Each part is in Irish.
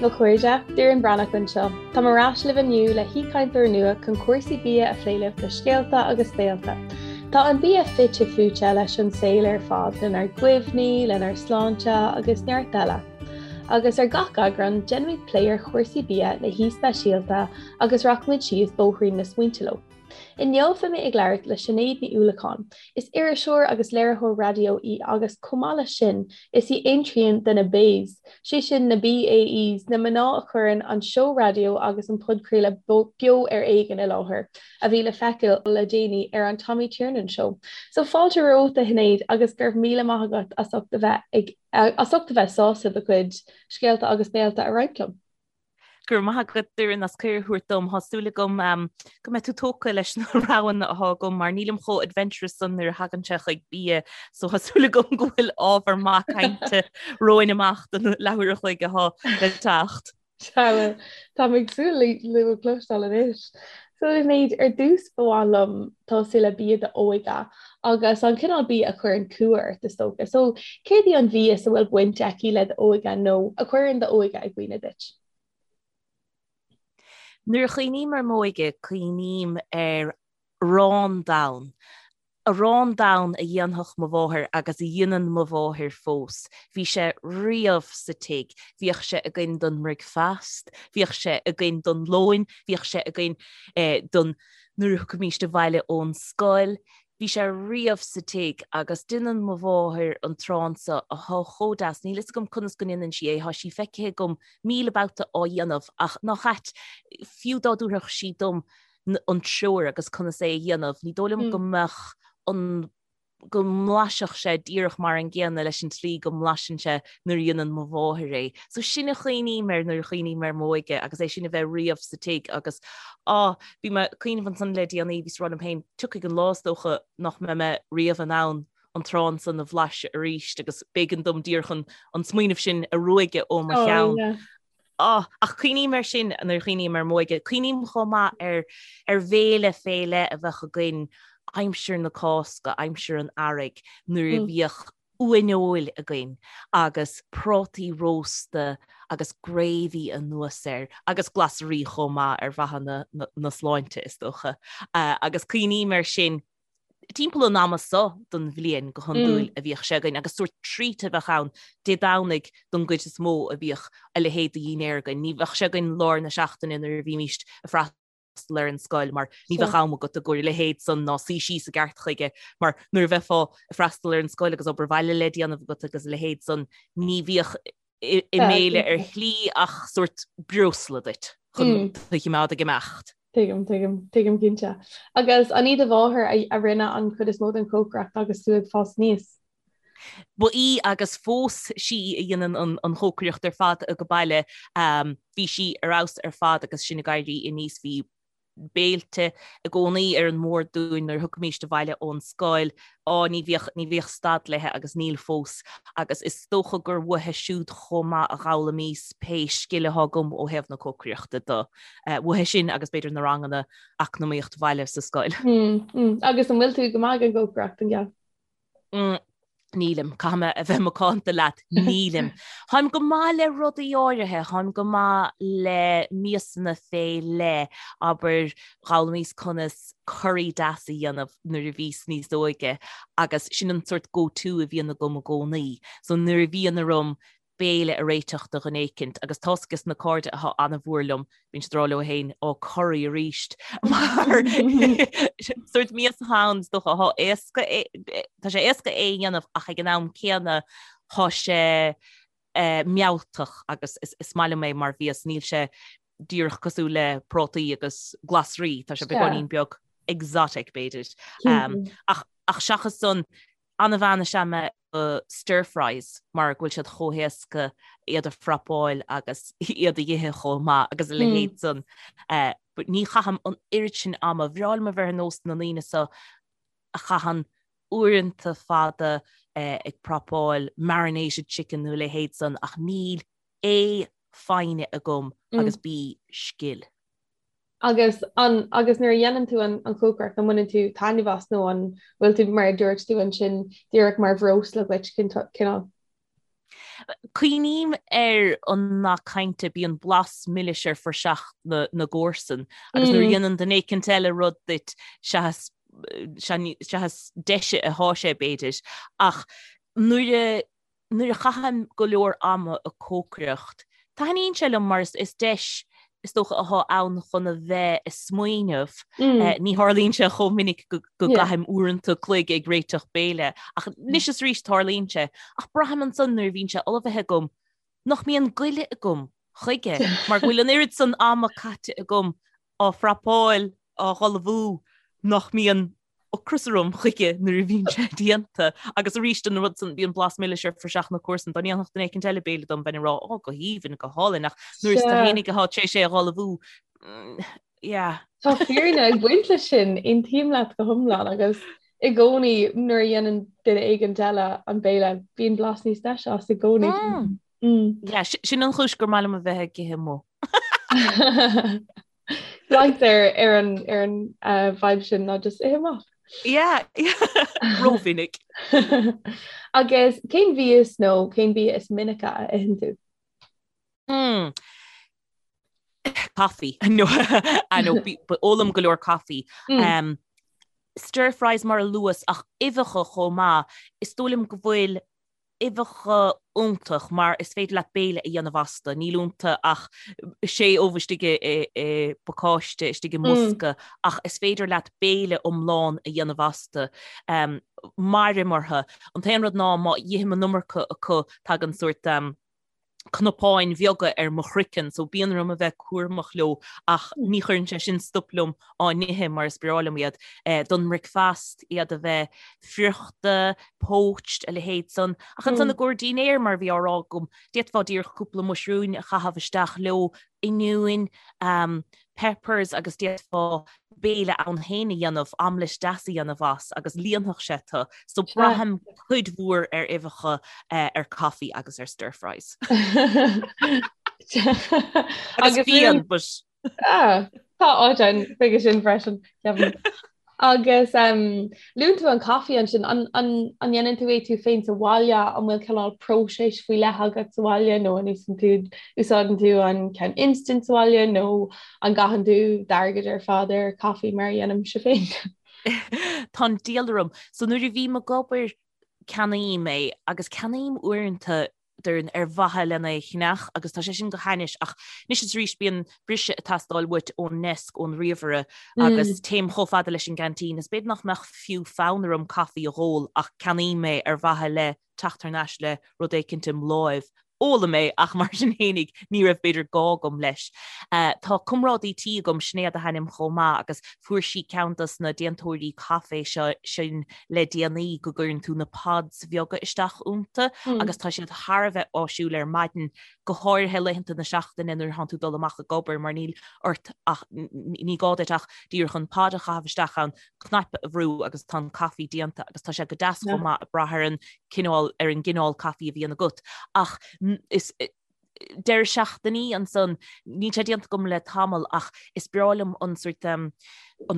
daoibh a chairde, Doireann Breathnach anseo. Táim ar ais libh inniu le haoichainteoir nua chun cúrsaí bia a phlé libh le scéalta agus béilte. Tá an bia fite fuaite leis an saol ar fad, lenár gcuimhní, lenár sláinte agus neart eile. Agus ar gach eagrán, déanfaimid plé ar chúrsaí bia le haoi speisialta agus rachaimid síos bóithrín na smaointe leo. Inniu beidh mé ag labhairt le Sinéad Ní Uallacháin. Is iriseoir agus léiritheoir raidió í agus chomh maith leis sin, is í aon trian de na BAES, sé sin na BAEs, na mná a chuireann an seó raidió agus an podchraoladh Beo ar Éigean i láthair, a bhí le feiceáil le déanaí ar an Tommy Tiernan Show. So fáilte romhat a Shinéad agus go raibh míle maith agat as ucht a bheith ag as ucht a bheith sásta do chuid scéalta agus béilte a roinnt liom. Go raibh maith agat Doireann as cuireadh a thabhairt dom. Tá súil agam go mbeidh tú tógtha leis na roghanna atá agam mar nílim chomh adventurous san nuair a thagann sé chuig bia so tá súil agam go bhfuil ábhar maith cainte romhainn amach don leathuair a chloig atá le teacht. Sea, táim ag súil leo a chloisteáil anois. So Sinéad, ar dtús ba mhaith liom tosú le bia d'óige agus an cineál bia a chuireann cumha ort is dócha. So céard í an mhias a bhfuil baint aici le d'óige nó a chuireann d'óige i gcuimhne duit? Nuair a chuimhním ar m'óige, cuimhním ar arán donn. Arán donn a dhéanfadh mo mháthair agus a dhéanann mo mháthair fós. Bhí sé riamh sa tigh. Bhíodh sé againn don mbricfeast, bhíodh sé againn don lóin, bhíodh sé againn don nuair a thiocfaimíst abhaile ón scoil. Bhí sé riamh sa tigh agus déanann mo mháthair an t-arán so atá chomh deas. Níl fhios agam conas go ndéanann sí é, tá sí feicthe agam 1000 babhta á dhéanamh ach nach ait, fiú dá dtabharfadh sí dom an treoir agus conas é a dhéanamh. Ní dóigh liom go mbeadh an go mblaisfeadh sé díreach mar an gcéanna leis an tslí go mblaiseann sé nuair a dhéanann mo mháthair é. So sin a chuimhním air nuair a chuimhním ar m'óige agus é sin a bheith riamh sa tigh agus á, bhí mé ag cuimhneamh ansan le déanaí, bhíos ag rá liom féin, tiocfaidh an lá is dócha nach mbeidh mé riamh in ann an t-arán san a bhlaiseadh arís agus b'éigean dom díreach an an smaoineamh sin a ruaigeadh ó mo cheann. Á, ach cuimhním air sin nuair a chuimhním ar m'óige. Cuimhním chomh maith ar ar bhéile fé leith a bheadh againn aimsir na Cásca, aimsir an Earraigh, nuair a bhíodh uaineoil againn agus prátaí rósta agus gravy anuas air agus glasraí chomh maith ar mhaithe na na na sláinte is dócha. Agus cuimhním air sin timpeall an ama so den bhliain go hiondúil a bhíodh sé againn agus sórt treat a bheadh ann Dé Domhnaigh don gcuid is mó a bhíodh a leithéid de dhinnéar againn. Ní bheadh sé againn lár na seachtaine nuair a bhímíst ag freastal ar an scoil mar ní bheadh am agat i gcomhair a leithéid san ná suí síos i gceart chuige mar nuair a bheifeá ag freastal ar an scoil agus obair bhaile le déanamh agat agus a leithéid san ní bhíodh i mbéile ar shlí ach sórt breosla duit chun tú a choimeád ag imeacht. Tuigim, tuigim, tuigim cinnte. Agus an í do mháthair a rinne an chuid is mó den chócaireacht agus tú ag fás aníos? Ba í agus fós sí a dhéanann an chócaireacht ar fad age baile. Bhí sí ar fheabhas ar fad agus sinn ag éirí aníos. Bhí béilte i gcónaí ar an mbord dúinn nuair a thiocfaimíst abhaile ón scoil. Á, ní bhíodh, ní bhíodh stad léi agus níl fós. Agus is dócha gur uaithi siúd chomh maith a d'fhoghlaimíos pé scil atá agam ó thaobh na cócaireachta de. Uaithi sin agus b'fhéidir na ranganna eacnamaíocht bhaile sa scoil. Agus an bhfuil tú go maith ag an gcócaireacht, an ea? Nílim, caithfidh mé a bheith macánta leat, nílim. Táim go maith le rudaí áirithe, táim go maith le miasanna fé leith, abair, d'fhoghlaimíos conas curry deas a dhéanamh nuair a bhíos níos óige agus sin an sórt go-to a bhíonn agam i gcónaí. So nuair a bhíonn orm béile a réiteach do dhuine éicint agus tá's ages na cairde atá an-mhór liom, bíonn siad ag rá leo féin, ó curry arís mar sórt mias atá ann is dócha atá éasca tá sé éasca é a dhéanamh ach ag an am céanna tá sé mealltach agus is maith liom é mar mhias, níl sé díreach cosúil le prátaí agus glasraí, tá sé beagáinín beag exotic b'fhéidir. Ach ach seachas san An-bhean is ea mé do stir fries mar go bhfuil siad chomh héasca iad a phrapáil agus iad a dh'ithe chomh maith agus a leithéid san. But ní chaithim an oiread sin ama. Bhreá liom a bheith ar nós na ndaoine so a chaitheann uaireanta fada ag prapáil marinated chicken nó a leithéid san ach níl A, foighne agam agus B, scil. Agus an, agus nuair a dhéanann tú an an chócaireacht, an mbaineann tú taitneamh as nó an bhfuil tú, mar a dúirt tú ansin, díreach mar bhreosla dhuit, cineál? Cuimhním ar an nath cainte bíonn blas milis ar phraiseach na na gcomharsan agus nuair a dhéanann duine éicint eile rud duit seachas seachas deise atá sé b'fhéidir ach nuair a nuair a chaithim go leor ama ag cócaireacht taitníonn sé liom mar is deis is dócha atá ann chun a bheith ag smaoineamh. Ní tharlaíonn sé chomh minic go gcaithim uaireanta cloig ag réiteach béile, ach anois is arís tarlaíonn sé. Ach braithim ansan nuair a bhíonn sé ullmhaithe agam nach mbíonn goile agam chuige, mar go bhfuil an oiread san ama caite agam á phrapáil, á ullmhú, nach mbíonn ocras orm chuige nuair a bhíonn sé déanta. Agus arís an rud san, bíonn blas milis ar phraiseach na comharsan, dá ndéanfadh duine éicint eile béile dom, bheinn ag rá, ó, go haoibhinn, go hálainn, ach nuair is tú fhéinig atá tar éis é a ullmhú, yeah. Tá fírinne ag baint leis sin, aontaím leat go hiomlán agus i gcónaí nuair a dhéanann duine éigin eile an béile, bíonn blas níos deise as i gcónaí. Yeah, sin an chúis gur maith liom a bheith ag ithe amuigh. Leigtear ar an ar an uh, vibe sin ná just ithe amach. Yeah, rómhinic. Agus cén mhias nó cén bia is minice a itheann tú? Mm. Coffee. No, I know, ólaim go leor coffee. Mm. Um, stir fries mar a luas ach uibheacha chomh maith. Is dóigh liom go bhfuil uibheacha iontach mar is féidir leat béile a dhéanamh astu. Níl iontu ach sé ubh istigh i bpacáiste, istigh i mbosca, ach is féidir leat béile iomlán a dhéanamh astu. Mairim orthu. An t-aon rud ná má ithim an iomarca acu tagann sórt cnapáin bheaga ar mo chraiceann, so bíonn orm a bheith cúramach leo ach ní chuireann sé sin stop liom á n-ithe mar is breá liom iad. Don mbricfeast, iad a bheith friochta, poached, a leithéid san. Ach ansan i gcomhair dinnéir, mar a bhí á rá agam, d'fhéadfá díreach cúpla muisriúin a chaitheamh isteach leo, oinniúin, peppers agus d'fhéadfá béile ann féin a dhéanamh, omelette deas a dhéanamh as agus líonfadh sé tú. So braithim cuid mhór ar uibheacha, ar coffee agus ar stir fries. Agus fíon, but... Ah, tá áit ann chuige sin freisin, ceapaim. Agus luann tú an caife ansin, an ndéanann tú é tú féin sa bhaile, an bhfuil cineál próiseas faoi leith agat sa bhaile nó an úsáideann tú úsáideann tú an ceann instant sa bhaile nó an gcaitheann tú d'airgead ar fad ar caife mar a dhéanaimse féin? Tá an diabhal orm. So nuair a bhím ag obair ceannaím é agus ceannaím uaireanta Doireann ar mhaithe lena é a cheannach agus tá sé sin go hainnis ach anois is arís bíonn briseadh ag teastáil uait ón ndeasc, ón ríomhaire agus téim chomh fada leis an gceaintín is b'fhéidir nach mbeadh fiú fonn orm caife a dh'ól ach ceannaím é ar mhaithe le teacht thar n-ais le rud éicint im láimh. Ólaim é ach mar sin fhéinig ní raibh b'fhéidir gá agam leis. Tá comrádaí tí agam, Sinéad a hainm chomh maith agus fuair sí ceann dos na déantóirí caife seo sin le déanaí go gcuireann tú na pods bheaga isteach iontu agus tá siad thar a bheith áisiúil ar maidin, go háirithe laethanta na seachtaine nuair atánn tú ag dul amach ag obair mar níl ort ach, ní gá duit ach díreach an pod a chaitheamh isteach ann, cnaipe a bhrú agus tá an caife déanta agus tá sé go deas chomh maith ag brath ar an cineál, ar an gcineál caife a bhíonn agat. Ach is. deireadh seachtainí ansan, níl sé déanta agam le tamall ach is breá liom an sort an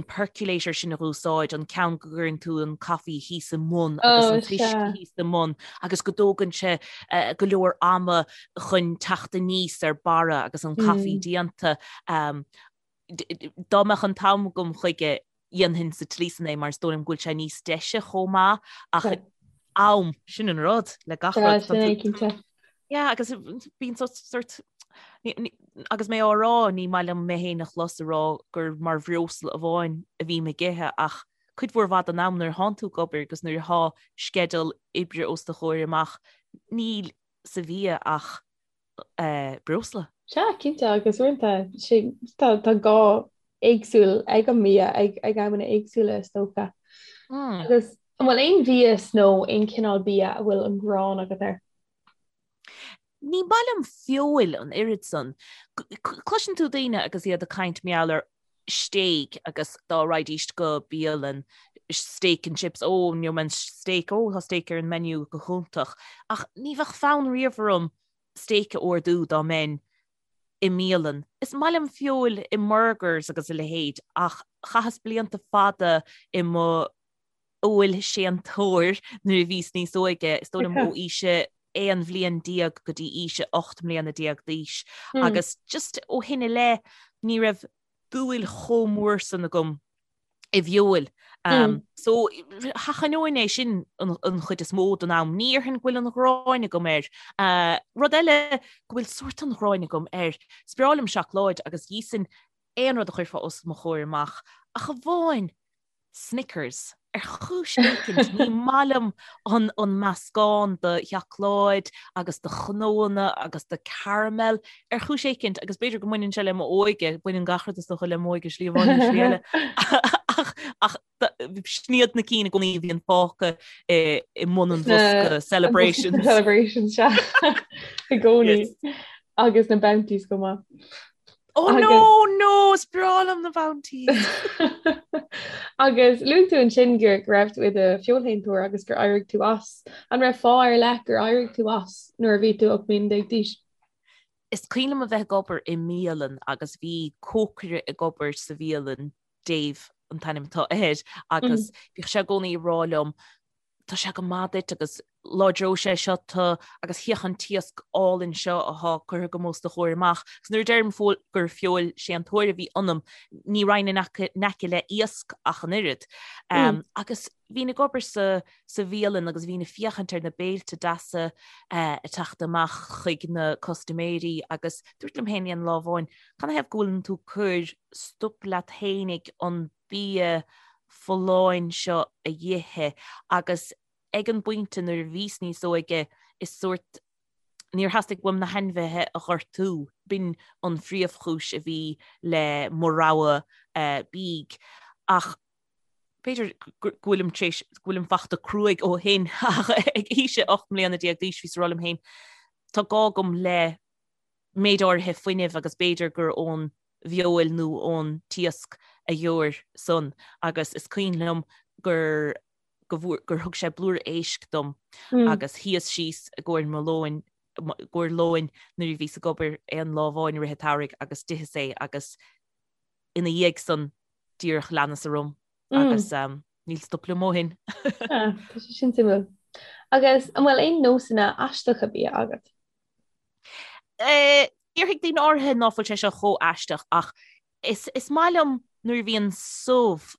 percolator sin a dh'úsáid, an ceann go gcuireann tú an caife thíos i mbun agus an t-uisce thíos i mbun agus go dtógann sé go leor ama chun teacht aníos ar barra agus an caife déanta. Dá mbeadh an t-am agam chuige, dhéanfainn sa tslí san é mar is dóigh liom go bhfuil sé níos deise chomh maith ach am, sin an rud le gach rud. Sin é cinnte. Yeah, agus bíonn sort agus mé á rá ní maith liom mé féin a chlos ag rá gur mar bhreosla amháin a bhím ag ithe ach cuid mhór mhaith den am nuair atánn tú ag obair agus nuair atá sceideal oibre os do chomhair amach níl sa bhia ach breosla. Sea, cinnte, agus uaireanta tá tá gá éagsúil ag an mbia ag ag amanna éagsúla is dócha. Agus an bhfuil aon mhias nó aon chineál bia a bhfuil an ghráin agat air? Ní maith liom feoil an oiread san. Cloiseann tú daoine agus iad ag caint mar gheall ar stéig agus dá raghaidís go bialann steak and chips, ó, gheobhaidh mé an steak, ó, tá steak ar an menu go hiontach. Ach ní bheadh fonn riamh orm steak a ordú dá mbeinn i mbialann. Is maith liom feoil i mburgers agus a leithéid ach chaitheas blianta fada i mo fheoilséantóir nuair a bhíos níos óige, is dóigh liom ó aois a. 11 bhliain go dtí aois a 18 mbliana d'aois agus just ó shin i leith ní raibh dúil chomh mór san agam i bhfeoil. So sheachnóinn é sin an chuid is mó den am. Ní dhéarfainn go bhfuil an ghráin agam air. Rud eile go bhfuil sórt an ghráin agam air, is breá liom seacláid agus d'íosfainn aon rud a chuirfeá os mo chomhair amach, ach amháin Snickers. Ar chúis éicint, ní maith liom an an meascán de sheacláid agus de chnóanna agus de caramel. Ar chúis éicint, agus b'fhéidir go mbaineann sé le m'óige, baineann gach rud is dócha le m'óige slí amháin nó slí eile, ach ach sin iad na cinn i gcónaí a bhíonn fágtha i i mbun an bhosca celebrations. Celebrations, sea. I gcónaí. Agus na Bounties chomh maith. Oh no, no, is breá liom na Bounties. Agus luaigh tú ansin go raibh tú i do feoilshéantóir agus gur éirigh tú as. An raibh fáth ar leith gur éirigh tú as nuair a bhí tú 18 mbliana d'aois? Is cuimhin liom a bheith ag obair i mbialann agus bhí cócaire ag obair sa bhialann, Dave an t-ainm atá air, agus bhíodh sé i gcónaí ag rá liom, tá sé go maith duit agus láidreoidh sé seo tú agus féach an t-iasc álainn seo atá curtha agam os do chomhair amach. Agus nuair a deirim gur feoilséantóir a bhí ionam, ní raghainn in aice le iasc ach an oiread. Agus bhínn ag obair sa sa bhialann agus bhínn ag féachaint ar na béilte deasa ag teacht amach chuig na custaiméirí agus dúirt liom féin aon lá amháin, canathaobh go bhfuileann tú ag cur stop leat fhéinig an bia folláin seo a dh'ithe agus ag an bpointe nuair a bhíos níos óige is sórt níor theastaigh uaim na hainmhithe a ghortú, b'in an phríomhchúis a bhí le mo rogha bídh. Ach b'fhéidir go bhfuilim tar éis, go bhfuilim fachta cruaidh ó shin ach ag aois a 18 mbliana d'aois bhíos ag rá liom féin, tá gá agam le méid áirithe fuinnimh agus b'fhéidir gur ón bhfeoil nó ón t-iasc a gheobhair san agus is cuimhin liom gur go bhfuair gur thug sé blúire éisc dom agus shuíos síos i gcomhair mo lóin i gcomhair lóin nuair a bhíos ag obair aon lá amháin i rith an tsamhraidh agus d'itheas é agus ina dhiaidh san díreach leanas orm agus níl stop liom ó shin. Tá sé sin suimiúil. Agus an bhfuil aon nósanna aisteacha bia agat? Déarfaidh daoine áirithe ná fuil sé seo chomh aisteach ach is is maith liom nuair a bhíonn subh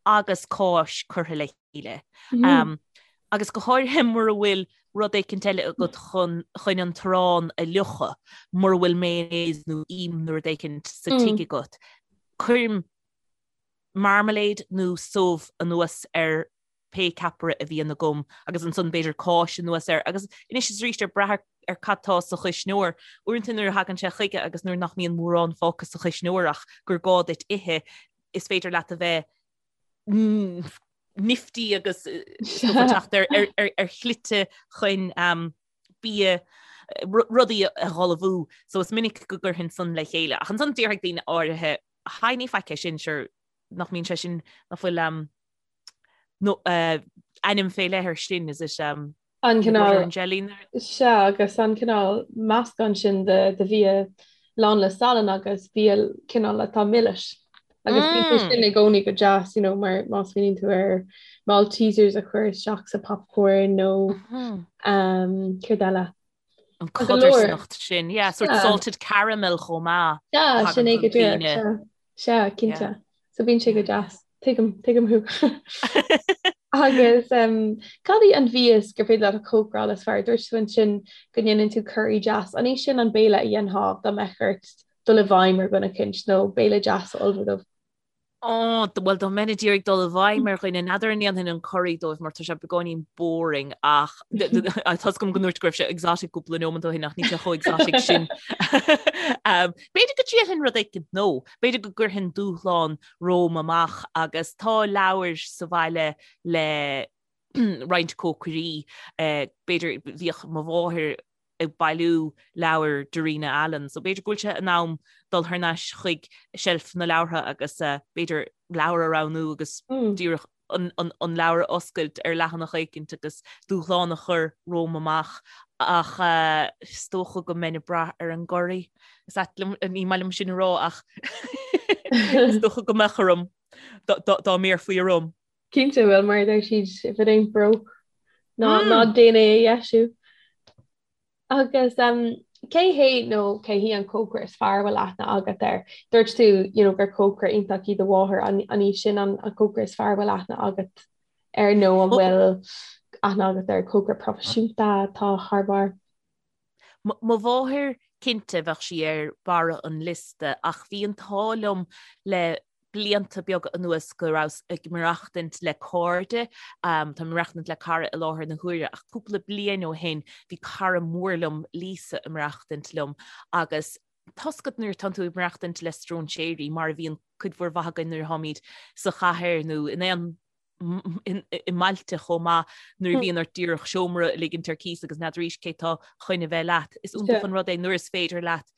agus cáis curtha le chéile. Agus go háirithe mura bhfuil rud éicint eile agat chun chun an t-arán a fhliuchadh, mura bhfuil mayonnaise nó im nó rud éicint sa tigh agat. Cuirim marmalade nó subh anuas ar pé ceapaire a bhíonn agam agus ansan b'fhéidir cáis anuas air agus anois is arís ag brath ar cad tá sa chuisneoir. Uaireanta nuair a thagann sé chuige agus nuair nach mbíonn mórán fágtha sa chuisneoir ach gur gá duit ithe, is féidir leat a bheith nifty agus teacht ar shlite chun bia rudaí a dh'ullmhú. So is minic go gcuirfinn san le chéile. Ach ansan déarfaidh daoine áirithe, Haigh ní faic é sin, sure nach mbíonn sé sin, nach bhfuil nó ainm fé leith air sin, is it um, An cineál jelly? Sea, agus an cineál meascán sin de de bhia lán le salann agus bia cineál atá milis. Agus bíonn sé sin i gcónaí go deas, you know, mar má smaoiníonn tú ar Maltesers a chur isteach sa popcorn nó um, céard eile. An codarsnacht sin, yeah, sort salted caramel chomh maith. Sea, sin é go díreach. Sea, cinnte. So bíonn sé go deas. Tuigim, tuigim thú. Agus um, cad í an mhias gur féidir leat a chócaráil is fearr? Dúirt tú ansin go ndéanann tú curry deas. An é sin an béile a dhéanfá dá mbeadh ort dul i bhfeidhm ar dhuine eicínt nó béile deas a ullmhú dóibh? Ó, bhuel, dá mbeinn ag iarraidh dul i bhfeidhm ar dhuine, n'fheadar an ndéanfainn an curry dóibh mar tá sé beagáinín boring ach tá a fhios agam go ndúirt go raibh sé exotic cúpla nóiméad ó shin ach níl sé chomh exotic sin. B'fhéidir go dtriailfinn rud éicint nó b'fhéidir go gcuirfinn dúshlán romham amach agus tá leabhair sa bhaile le roinnt cócairí, b'fhéidir bhíodh mo mháthair ag bailiú leabhar Darina Allen, so b'fhéidir go bhfuil sé in am dul thar n-ais chuig seilf na leabhartha agus b'fhéidir leabhar a roghnú agus díreach an leabhar a oscailt ar leathanach éicint agus dúshlán a chur romham amach ach is dócha go mbeinn ag brath ar an gcurry. Is ait liom, ní maith liom sin a rá ach is dócha go mbeadh orm dá mbéarfaí orm. Cinnte, bhuel mar a deir siad, if it ain't broke, ná ná déan é a dheisiú. Agus cé hé nó cé hí an cócaire is fearr a bhfuil aithne agat air? Dúirt tú you know, gur cócaire iontach í do mháthair, an í sin an cócaire is fearr a bhfuil aithne agat air nó an bhfuil aithne agat ar cócaire proifisiúnta atá thar barr? Mo mháthair, cinnte, bheadh sí ar barra an liosta ach bhí an t-ádh liom le blianta beaga anuas go rabhas ag maireachtaint le cairde, táim ag maireachtaint le cara i láthair na huaire ach cúpla bliain ó shin bhí cara mór liom, Lisa, ag maireachtaint liom agus tá's agat nuair atánn tú ag maireachtaint le stróinséirí mar a bhíonn cuid mhór mhaith againn nuair atáimid sa chathair nó in aon i mbailte chomh maith nuair a bhíonn ort díreach seomra a ligint ar cíos agus n'fheadar cé tá chun a bheith leat. Is iontach an rud é nuair is féidir leat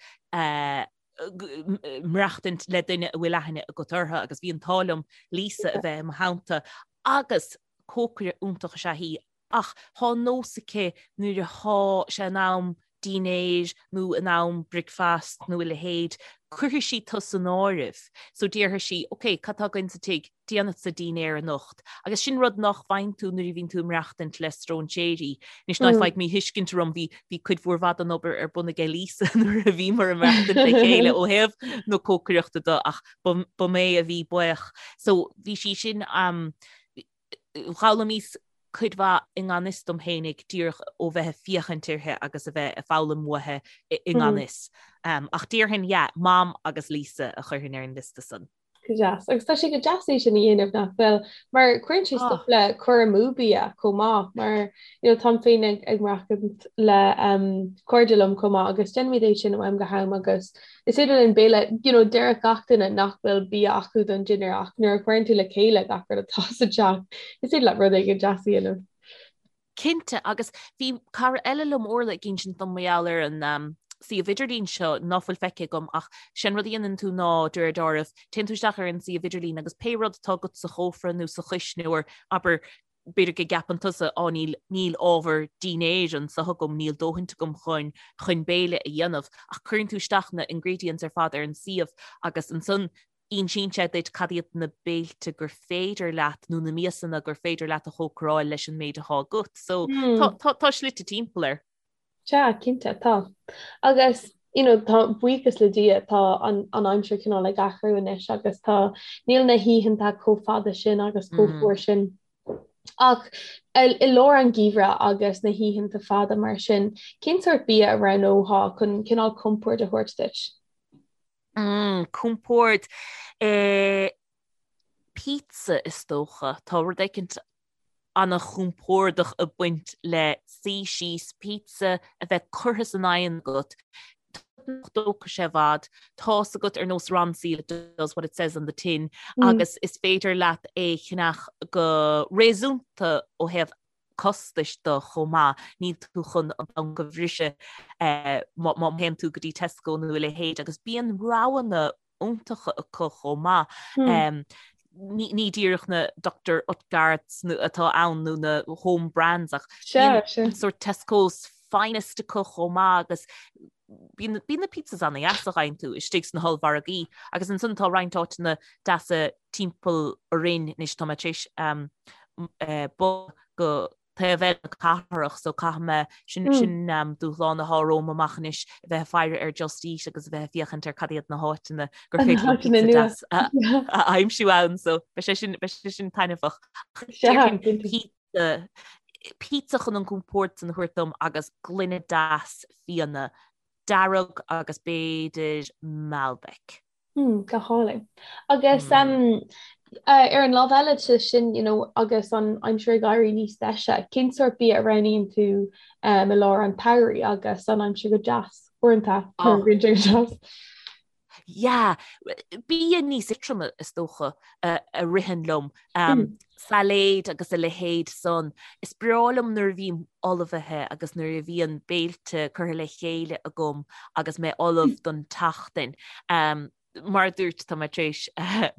maireachtaint le duine a bhfuil aithne agat orthu agus bhí an t-ádh liom Lisa a bheith i mo theannta agus cócaire iontach is ea í ach thá nós aici nuair athá sé in am dinnéir nó in am bricfeast nó a leithéid, cuirfidh sí tú san áireamh. So déarfaidh sí, ok, cad tá againn sa tigh? Déanfadsa dinnéar anocht. Agus sin rud nach bhfaigheann tú nuair a bhíonn tú ag maireachtaint le stróinséirí. Anois ná faigh míthuiscint orm, bhí bhí cuid mhór mhaith den obair ar bun aige Lisa nuair a bhíomar ag maireachtaint le chéile ó thaobh na cócaireachta de ach ba mé a bhí baoch. So bhí sí sin um, D'fhoghlaimíos cuid mhaith i ngan fhios dom fhéinig díreach ó bheith ag féachaint uirthi agus a bheith ag foghlaim uaithi i ngan fhios. Ach déarfainn, yeah, Mam agus Lisa a chuirfinn ar an liosta san. Go deas. Agus tá sé go deas é sin a dhéanamh nach bhfuil? Mar cuireann sé stop le cur amú bia chomh maith mar you know, táim féin ag ag maireachtaint le um, cairde liom chomh maith agus déanaimid é sin ó am go ham agus Is féidir linn béile, you know, déarfadh gach duine nach bhfuil bia acu don dinnéar ach nuair a chuireann tú le chéile gach rud atá sa teach, is féidir leat rud éigin deas a dhéanamh. Cinnte, agus bhí cara eile liom, Orla, ag insint dom mar gheall ar an um, suíomh idirlín seo ná fuil feicthe agam ach sé'n rud a dhéanann tú ná de réir dealraimh, téann tú isteach ar an suíomh idirlín agus pé rud atá agat sa chófra nó sa chuisneoir, abair b'fhéidir go gceapann tusa, á níl, níl ábhar dinnéir anseo agam, níl dóthaint agam chun, chun béile a dhéanamh, ach cuireann tú isteach na ingredients ar fad ar an suíomh agus ansan insíonn sé duit cad iad na béilte gur féidir leat nó na miasanna gur féidir leat a chócaráil leis an méid atá agat. So tá, tá, tá slite timpeall air. Sea, cinnte, tá. Agus, you know, tá, buíochas le Dia, tá an, an aimsir cineál ag athrú anois agus tá, níl na hoícheanta chomh fada sin agus chomh fuar sin. Ach i, i lár an gheimhridh agus na hoícheanta fada mar sin, cén sórt bia a roghnófá chun cineál compord a thabhairt duit? Mm, compord. Eh, pizza is dócha. Tá rud éicint an-chompordach ag baint le suí síos, pizza a bheith curtha san oigheann agat, nach dtógfaidh sé i bhfad, tá's agat ar nós Ronseal it does what it says on the tin agus is féidir leat é a cheannach go réasúnta ó thaobh costais de chomh maith, níl tú chun an banc a bhriseadh má théann tú go dtí Tesco nó a leithéid agus bíonn roghanna iontacha acu chomh maith. Ní díreach na Dr Oetker's atá ann nó na home brands ach bíonn sort Tesco's finest acu chomh maith agus bíonn na pizzas ana-dheas a fhaigheann tú istigh sna hollmhargaí agus ansan tá roinnt áiteanna deasa timpeall orainn anois tá mé tar éis bogadh go taobh eile na cathrach so caithfidh mé sin sin dúshlán atá romham amach anois a bheith ag faire ar Just Eat agus a bheith ag féachaint ar cad iad na háiteanna gur féidir liom pizza deas a aimsiú ann so beidh sé sin beidh sé sin taitneamhach. Pizza pizza chun an compord san a thabhairt dom agus gloine deas fíona dearg agus b'fhéidir Malbec. Mm, go hálainn. Agus um, uh, ar an lámh eile de sin, you know, agus an aimsir ag éirí níos deise, cén sórt bia a roghnaíonn tú um, i lár an tsamhraidh agus an aimsir go deas uaireanta oh. go deas. Yeah, bia níos éadroime is dócha a, a ritheann liom. Um, mm. Sailéid agus a leithéid san. Is breá liom nuair a bhím ullmhaithe agus nuair a bhíonn béilte curtha le chéile agam agus mé ullamh mm. don tseachtain. Um, mar a dúirt tá mé tar éis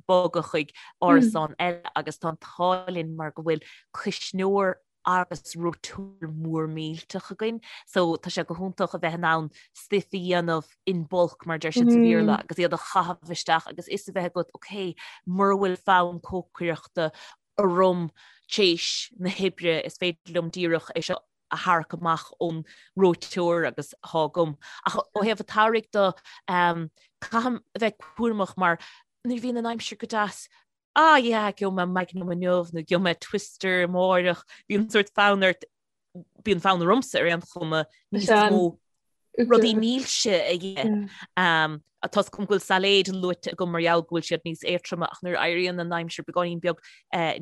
bogadh chuig árasán mm. eile agus tá an t-ádh linn mar go bhfuil cuisneoir agus reoiteoir mór millteach againn so tá sé go hiontach a bheith in ann stuif a dhéanamh in bulk mar deir siad sa Bhéarla agus iad a chaitheamh isteach agus fhios a bheith agat ok mura bhfuil fonn cócaireachta orm tar éis na hoibre is féidir liom díreach é seo. a tharrac amach ón reoiteoir agus thá agam. Ach ó thaobh an tsamhraidh de, caithim a bheith cúramach mar nuair a bhíonn an aimsir go deas, ah yeah, gheobhaidh mé Magnum inniu nó gheobhaidh mé Twister amáireach, bíonn sórt fonn ort, bíonn fonn ormsa ar aon chuma níos mó rudaí milse a ithe. Tá 's agam go bhfuil sailéid luaite agam mar gheall go bhfuil siad níos éadtroime ach nuair a éiríonn an aimsir beagáinín beag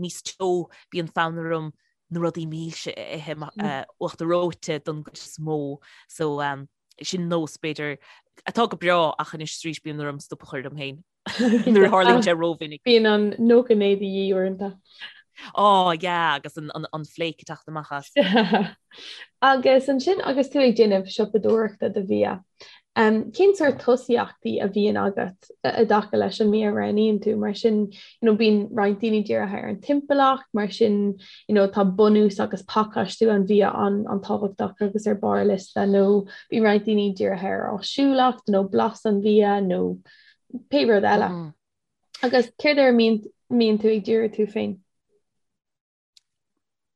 níos teo bíonn fonn orm na rudaí milse a ithe uachtar reoite don gcuid is mó. So sin nós b'fhéidir atá go breá ach anois arís bíonn orm stop a chur orm féin nuair a tharlaíonn sé rómhinic. Bíonn an 99 de dhíth uaireanta. Ó yeah agus an flake ag teacht amach as. Agus ansin agus tú ag déanamh siopadóireachta do bhia, cén sórt tosaíochtaí a bhíonn agat i dtaca leis an mbia a roghnaíonn tú? Mar sin, you know, bíonn roinnt daoine dírithe ar an timpeallacht, mar sin, you know, tá bunús agus pacáistiú an bhia an-tábhachtach agus ar barr a liosta, nó bíonn roinnt daoine dírithe ar áisiúlacht nó blas an bhia nó pé rud eile. Agus céard air a mbíonn tú ag díriú tú féin?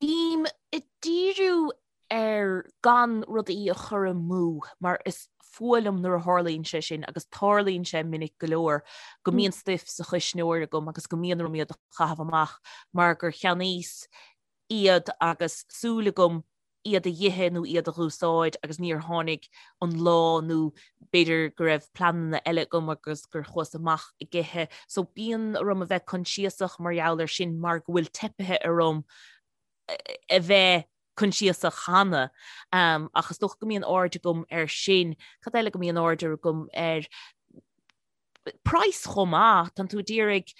Bím ag díriú ar gan rudaí a chur amú mar is fuath liom nuair a tharlaíonn sé sin agus tarlaíonn sé minic go leor go mbíonn stuif sa chuisneoir agam agus go mbíonn orm iad a chaitheamh amach mar gur cheannaíos iad agus súil agam iad a dh'ithe nó iad a dh'úsáid agus níor tháinig an lá nó b'fhéidir go raibh pleananna eile agam agus gur chuas amach ag ithe. So bíonn orm a bheith coinsiasach mar gheall air sin mar go bhfuil teipithe orm a bheith coinsiasach cheana. Ach is dócha go mbíonn aird agam air sin. Cad eile go mbíonn aird agam air? Praghas chomh maith, tánn tú ag iarraidh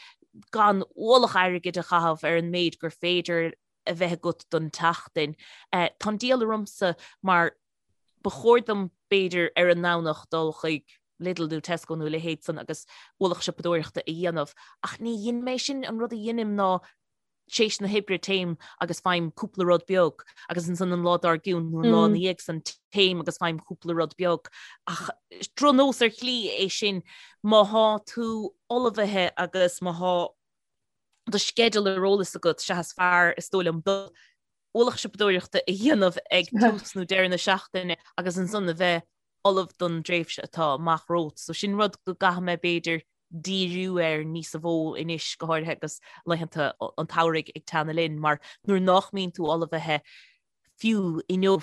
gan ualach airgid a chaitheamh ar an méid gur féidir a bheith agat don tseachtain. Tá an diabhal ormsa mar ba chóir dom b'fhéidir ar an nDomhnach dul chuig Lidl nó Tesco nó a leithéid san agus ualach siopadóireachta a dhéanamh ach ní dheinim é sin, an rud a dheinim ná tar éis na hoibre téim agus faighim cúpla rud beag agus ansan an lá dár gcionn nó an lá ina dhiaidh san téim agus faighim cúpla rud beag ach drochnós ar shlí é sin má thá tú ullmhaithe agus má thá do sceideal ar eolas agat, sea is fearr, is dóigh liom, dul ualach siopadóireachta a dhéanamh ag tús nó deireadh na seachtaine agus ansan a bheith ullamh don dtréimhse atá amach romhat. So sin rud go gcaithfidh mé b'fhéidir díriú air níosa mhó anois, go háirithe agus laethanta an tsamhraidh ag teannadh linn, mar nuair nách mbíonn tú ullmhaithe fiú inniu,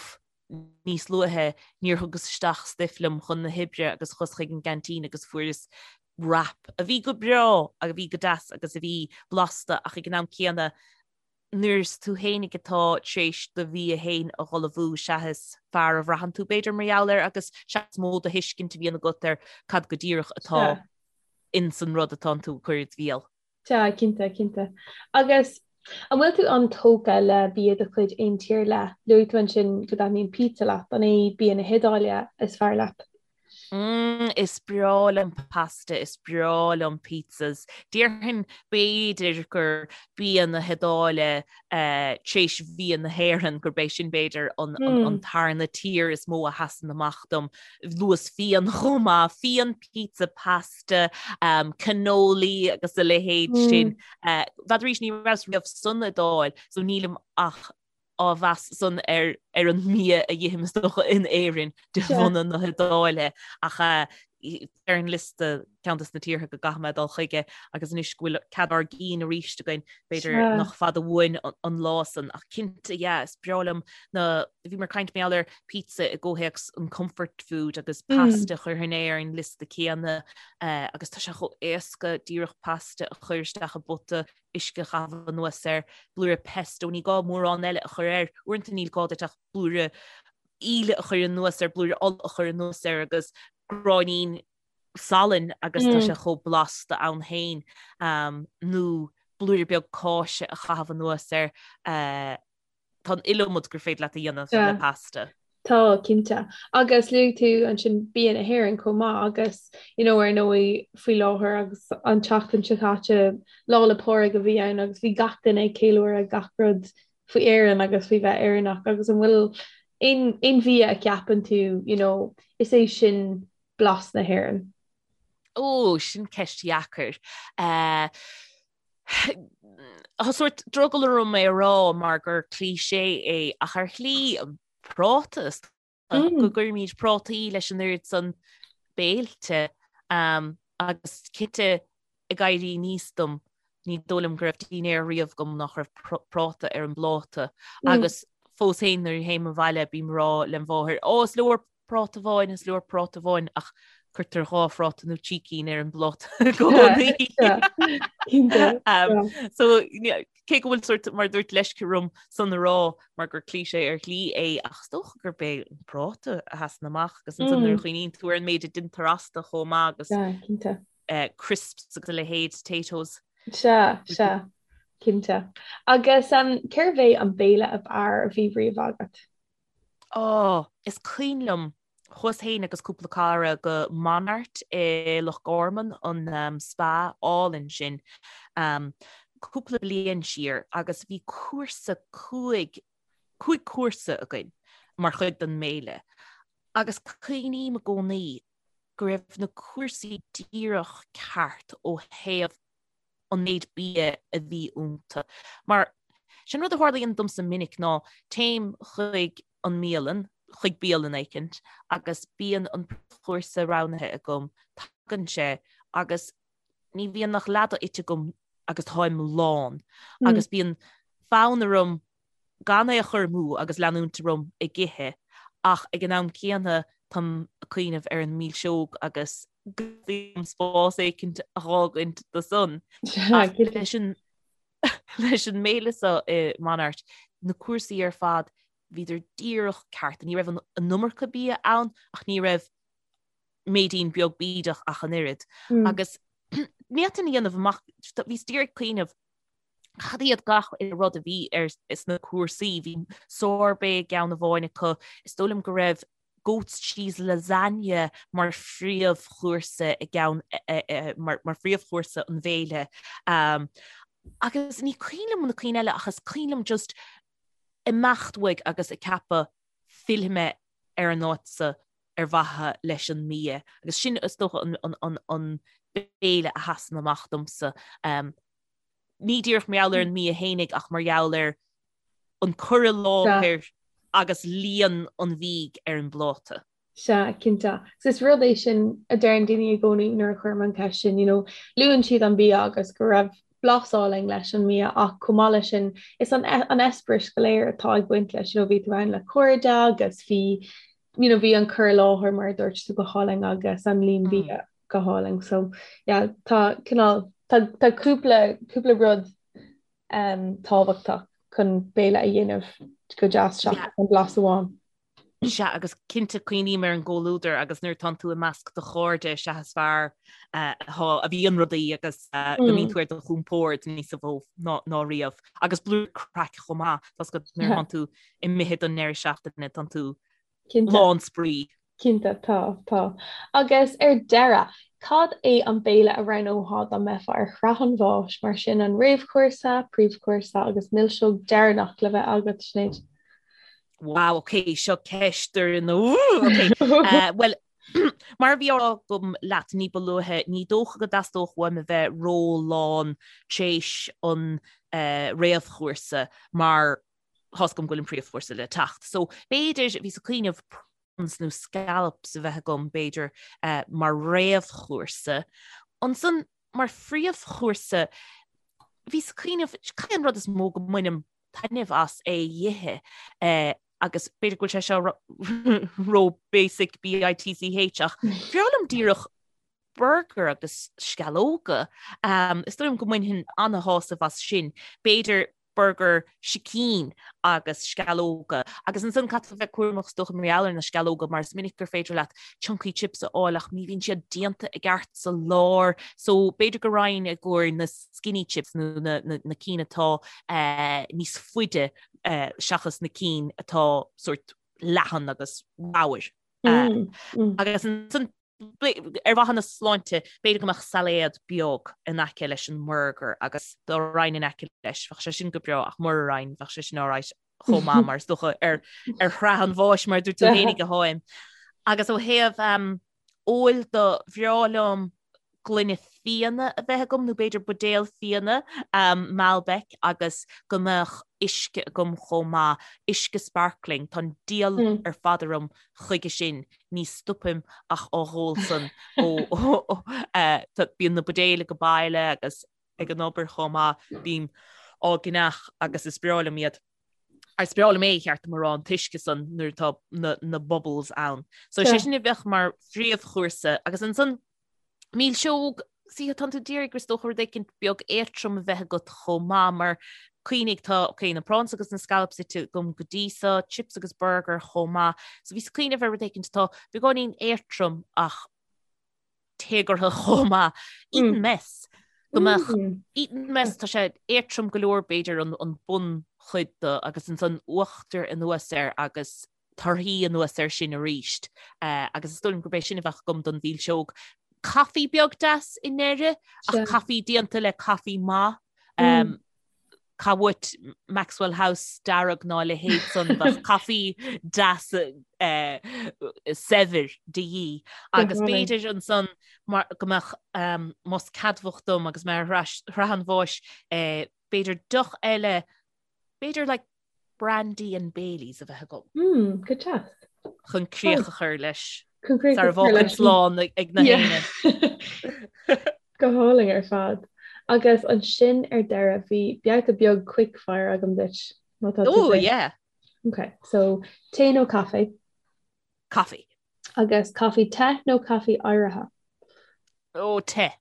níos luaithe, níor thugas isteach stuif liom chun na hoibre agus chuas chuig an gceaintín agus fuaireas wrap a bhí go breá, a bhí go deas agus a bhí blasta ach ag an am céanna nuair is tú fhéinig atá tar éis do bhia fhéin a dh'ullmhú sea is fearr a bhraitheann tú b'fhéidir mar gheall air agus sea is mó de thuiscint a bhíonn agat ar cad go díreach atá ins an rud atánn tú ag cur id bhéal. Sea, cinnte, cinnte. Agus an bhfuil tú an-tógtha le bia de chuid aon tír ar leith? Luaigh tú ansin go dtaitníonn pizza leat, an é bia na hIodáile is fearr leat? Mm, is breá liom pasta, is breá liom pizzas. Déarfainn b'fhéidir gur bia na hIodáile tar éis bhia na hÉireann, gurb é sin b'fhéidir an tarna tír is mó a sheasann amach dom. Luas fíon chomh maith, fíon, pizza, pasta, cannoli agus a leithéid sin. B'fhéidir arís ní rabhas riamh san Iodáil, so nílim ach á mheas san ar ar an mbia a dh'ithim is dócha in Éirinn de bhunadh na hIodáile ach ar an liosta ceann des na tíortha go gcaithfidh mé dul chuige agus anois go bhfuil cead ár gcinn arís againn b'fhéidir nach fada uainn an lá san ach cinnte yeah is breá liom na bhí mé ag caint mar gheall ar pizza i gcomhthéacs an comfort food agus pasta chuirfinn é ar an liosta céanna agus tá sé chomh éasca díreach pasta a chur isteach i bpota uisce a chaitheamh anuas air, blúire pesto, ní gá mórán eile a chur air, uaireanta níl gá duit ach blúire íle a chur anuas air, blúire ola a chur anuas air agus gráinnín salainn agus tá sé chomh blasta ann féin, nó blúire beag cáise a chaitheamh anuas air. Tá an iliomad gur féidir leat a dhéanamh le pasta. Tá, cinnte. Agus luaigh tú ansin bia na hÉireann chomh maith agus, you know, ar ndóigh, faoi láthair agus an tseachtain seo caite, Lá 'le Pádraig a bhí ann agus bhí gach duine ag ceiliúradh gach rud faoi Éirinn agus faoi bheith Éireannach agus an bhfuil aon, aon bhia a cheapann tú, you know, is é sin blas na hÉireann? Ó, sin ceist dheacair. Eh, Tá sórt drogall orm é a rá mar gur cliché é ach ar shlí. Práta is go gcuirimid prátaí leis an oiread san béilte agus cinnte ag éirí aníos dom ní dóigh liom go raibh dinnéar riamh agam nach raibh práta ar an bpláta agus fós féin nuair a théim abhaile bím ag rá lem mháthair ó is leor práta amháin, is leor práta amháin ach cuirtear 2 phráta nó 3 cinn ar an bpláta i gcónaí. So cé go bhfuil sort mar dúirt leisce orm san a rá mar gur cliché ar shlí é ach is dócha gurb é an práta a sheasann amach agus ansan nuair a chuimhníonn tú ar an méid a deintear astu chomh maith agus crisps agus a leithéid, Taytos. Sea, sea, cinnte. Agus cérbh é an béile ab fhearr a bhí riamh agat? Ó, is cuimhin liom, chuas féin agus cúpla cara go Monart i Loch Garman, an spa álainn sin, cúpla bliain siar agus bhí cúrsa cúig, cúig cúrsa againn mar chuid den mbéile agus cuimhním i gcónaí go raibh na cúrsaí díreach ceart ó thaobh an méid bia a bhí iontu. Mar sin rud a tharlaíonn domsa minic ná téim chuig an mbialann, chuig bialann éicint agus bíonn an príomhchúrsa roghnaithe agam, tagann sé agus ní bhíonn ach leath de ite agam agus táim lán agus bíonn fonn orm gan é a chur amú agus leanúint orm ag ithe ach ag an am céanna táim ag cuimhneamh ar an milseog agus go dteastaíonn spás éicint a dh'fhágaint do san. Ach leis an leis an mbéile seo i Monart, na cúrsaí ar fad, bhíodar díreach ceart. Ní raibh an iomarca bia ann ach ní raibh méidín beag bídeach ach an oiread. Agus ní fhéadfainn a dhéanamh amach, bhíos díreach ag cuimhneamh Cad iad gach uile rud a bhí ar sna cúrsaí? Bhí sorbet i gceann amháin acu. Is dóigh liom go raibh goat's cheese lasagne mar phríomhchúrsa i gceann mar phríomhchúrsa an bhéile. Agus ní cuimhin liom na cinn eile ach is cuimhin liom just imeacht uaidh agus ag ceapadh fillfidh mé ar an áit seo ar mhaithe leis an mbia. Agus sin is dócha an béile a sheasann amach domsa. Ní díreach mar gheall ar an mbia fhéinig ach mar gheall ar an cur i láthair agus líon an bhídh ar an bpláta. Sea, cinnte. Is rud é sin a deireann daoine i gcónaí nuair a chuirim an cheist sin, you know, luann siad an bia agus go raibh blas álainn leis an mbia ach chomh maith leis sin is an an eispéireas go léir atá ag baint leis, you know, bhí tú ann le cairde agus bhí you know, bhí an cur i láthair mar a dúirt tú go hálainn agus an líon bia go hálainn. So yeah, tá cineál tá tá cúpla cúpla rud um, tábhachtach chun béile a dhéanamh go deas seachas an blas amháin. Sea, agus cinnte cuimhním ar an gcomhluadar agus nuair atánn tú i measc do chairde is ea is fearr a bhíonn rudaí agus go mbíonn tú ar do chompord níos mó ná riamh. Agus blúire craic chomh maith, tá 's agat nuair atánn tú imithe don ndeireadh seachtaine, tánn tú lán spraoi. Cinnte, tá, tá. Agus ar deireadh, cad é an béile a roghnófá dá mbeifeá ar shraith an bháis, mar sin an réamhchúrsa, príomhchúrsa agus milseog deireanach le bheith agat, Sinéad? Wow, ok, seo ceist ar an ok. Uh, well, mar a bhí á rá agam leat ní ba luaithe, ní dócha go dteastódh uaim a bheith ró-lán tréis an uh, réamhchúrsa mar tá's agam go bhfuil an príomhchúrsa le teacht. So b'fhéidir bhíos ag cuimhneamh prawns nó scallops a bheith agam b'fhéidir uh, mar réamhchúrsa. Ansan mar phríomhchúrsa bhíos ag cuimhneamh cad é an rud is mó go mbainim taitneamh as é a dh'ithe uh, agus b'fhéidir go bhfuil sé seo ró basic BITCH ach bhreá liom díreach burger agus sceallóga. Um, is dóigh liom go mbainfinn ana-shásamh as sin. B'fhéidir burger sicín agus sceallóga. Agus ansan caithfidh tú bheith cúramach is dócha mar gheall ar na sceallóga mar is minic gur féidir leat chunky chips a fháil ach ní bhíonn siad déanta i gceart sa lár. So b'fhéidir go raghainn i gcomhair na skinny chips nó na, na, na cinn atá eh, níos faide eh, seachas na cinn atá sort leathan agus ramhar. Eh, mm, mm. Agus ansan Ar mhaithe na sláinte, b'fhéidir go mbeadh sailéad beag in aice leis an mburgar agus dá raghainn in aice leis, bheadh sé sin go breá ach mura raghainn, bheadh sé sin alright chomh maith mar is dócha ar ar shraith an bháis mar a dúirt tú fhéinig atáim. Agus ó thaobh um, óil de, bhreá liom Gloine fíona a bheith agam nó b'fhéidir buidéal fíona, Malbec, agus go mbeadh uisce agam chomh maith, uisce sparkling, tá an diabhal ar fad orm chuige sin, ní stopaim ach á dh'ól san ó bíonn na buidéil ag baile agus ag an obair chomh maith, bím á gceannach agus is breá liom iad. Is breá liom é, cheart dom a rá, an t-uisce san nuair atá na bubbles ann. So sé sin a bheadh mar phríomhchúrsa agus ansan Milseog, sea, tánn tú d'iarraidh is dócha rud éicint beag éadtrom a bheith agat chomh maith mar cuimhnigh tá, ok, na prawns agus na scallops ite agam go dtí so, chips agus burger chomh maith. So bhíos ag cuimhneamh ar rud éicint atá beagáinín éadtrom ach téagartha chomh maith. Eton mess. Go mbeadh Eton mess, tá sé éadtrom go leor b'fhéidir an an bunchuid de agus ansan uachtar anuas air agus torthaí anuas air sin arís agus is dóigh liom gurb é sin a bheadh agam don mhilseog. Caife beag deas i ndeireadh, ach caife déanta le caife maith. Cá uait Maxwell House dearg ná a leithéid san, bheadh caife deas saibhir de dhíth. Agus b'fhéidir ansan mar go mbeadh más ceadmhach dom agus mé ar shraith an bháis, b'fhéidir deoch eile, b'fhéidir like Brandy and Baileys a bheith agam. Mm, go deas. Chun críoch a chur leis. Chun críoch a chur leis. Slán ag na héinne. Go hálainn ar fad. Agus ansin ar deireadh bhí babhta beag quick fire agam duit. Má tá tú Oh, yeah. Okay, so tae nó caife? Caife. Agus caife te nó caife oighrithe? Oh, te.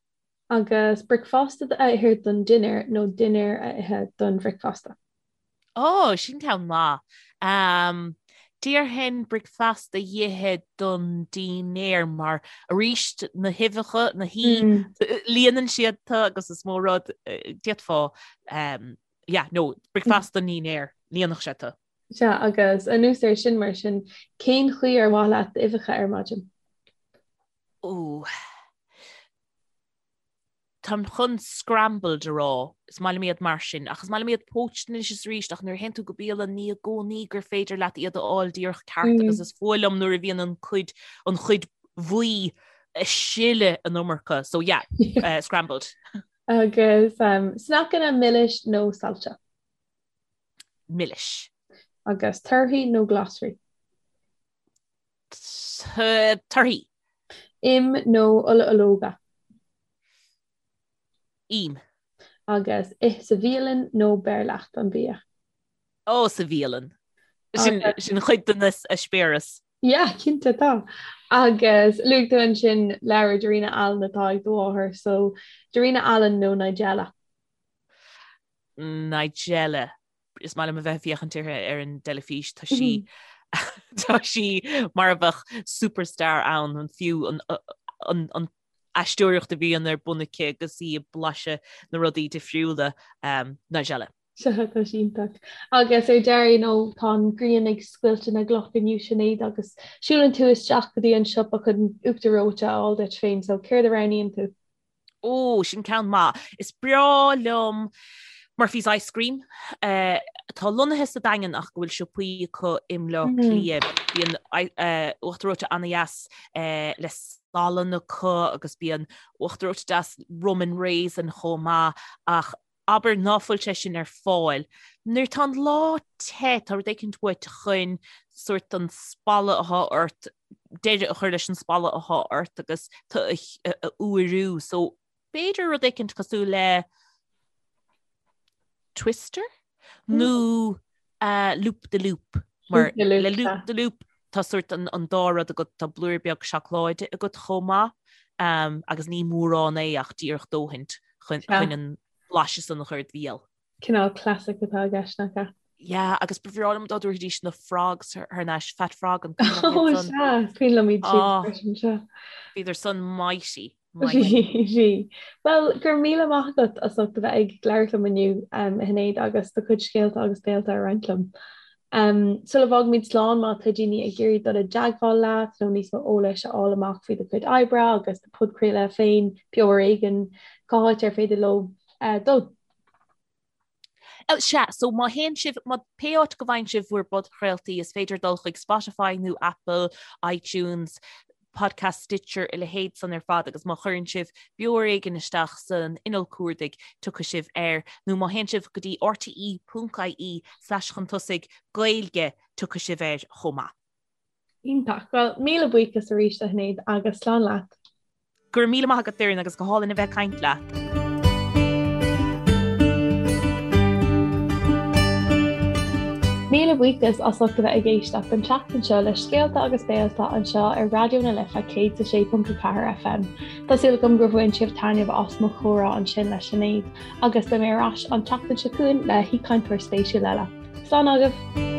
Agus bricfeasta a ithe don dinnéar nó dinnéar a ithe don bhricfeasta? Ó, sin ceann maith. Déarfainn bricfeasta a ithe don dinnéar mar arís na huibheacha, na hí, líonann siad tú agus is mó rud d'fhéadfá, yeah, no, bricfeasta don dinnéar, líonfadh sé tú. Sea, agus anuas air sin mar sin, cén chaoi ar mhaith leat d'uibheacha ar maidin? Ó. Táim chun scrambled a rá, is maith liom iad mar sin, ach is maith liom iad poached anois is arís, ach nuair a théann tú go bialann ní i gcónaí gur féidir leat iad a fháil díreach ceart agus is fuath liom nuair a bhíonn an cuid, an chuid bhuí ag sileadh an iomarca, so yeah, scrambled. Agus sneaiceanna milis nó saillte? Milis. Agus torthaí nó glasraí? Torthaí. Im nó ola ológa? Im. Agus ith sa bhialann nó beir leat an bia? Ó, sa bhialann. Sin sin chuid den eispéireas. Yeah, cinnte tá. Agus luaigh tú ansin leabhar Darina Allen atá ag do mháthair, so Darina Allen nó Nigella? Nigella. Is maith liom a bheith ag féachaint uirthi ar an dteilifís, tá sí tá sí mar a bheadh superstar ann, an fiú an an an aisteoireacht a bhíonn ar bun aici agus í ag blaiseadh na rudaí difriúla um, Nigella. Sea, tá sí iontach. Agus ar deireadh, you know, tá an ghrian ag scoilteadh na gcloch inniu Sinéad agus siúlann tú isteach go dtí an siopa chun uachtar reoite a fháil duit féin, so céard a roghnaíonn tú? Ó, sin ceann maith. Is breá liom Murphy's Ice Cream, atá lonnaithe sa Daingean ach go bhfuil siopaí acu i mBleá Cliath. Bíonn uachtar reoite an-dheas le salann acu agus bíonn uachtar reoite deas rum and raisin chomh maith ach abair ná fuil sé sin ar fáil. Nuair tá an lá te, tá rud éicint uait chun sórt an spalladh athá ort, deireadh a chur leis an spalladh athá ort agus tú a fhuarú. So b'fhéidir rud éicint cosúil le Twister nó Loop de Loop. Mar le Loop de Loop tá sórt an dá rud agat, tá blúire beag seacláide agat chomh maith agus ní mórán é ach díreach dóthaint chun an blaiseadh san a chur id bhéal. Cineál classic atá i gceist, nach ea? Yeah, agus ba bhreá liom dá dtabharfaidís na frogs thar n-ais, Fat Frog an cuimhin leat iad san? Ó, sea, is cuimhin liom iad siúd freisin, sea. Bhíodar san mighty. Bhí. Bhuel, go raibh míle maith agat as ucht a bheith ag labhairt liom inniu, a Shinéad, agus do chuid scéalta agus béalta a roinnt liom. Sula bhfágaimid slán, má tá daoine ag iarraidh dul i dteagmháil leat nó níos mó eolais a fháil amach faoi do chuid oibre agus do podchraoladh féin, Beo ar Éigean, cá háit ar féidir leo dul? Sea, so má théann sibh, má, pé áit go bhfaigheann sibh bhur bpodchraoltaí, is féidir dul chuig Spotify nó Apple, iTunes, Podcast, Stitcher, a leithéid san ar fad agus má chuireann sibh Beo Ar Éigean isteach san inneall cuardaigh tiocfaidh sibh air nó má théann sibh go dtí rte.ie slash chun tosaigh Gaeilge tiocfaidh sibh air chomh maith. Iontach. Bhuel, míle buíochas arís a Shinéad agus slán leat. Go raibh míle maith agat Doireann agus go hálainn a bheith ag caint leat. Míle buíochas as ucht a bheith ag éisteacht an tseachtain seo le Scéalta agus Béalta anseo ar Raidió na Life 106.4 FM. Tá súil agam gur bhain sibh taitneamh as mo chomhrá ansin le Sinéad agus beidh mé ar ais an tseachtain seo chugainn le haoichainteoir spéisiúil eile. Slán agaibh!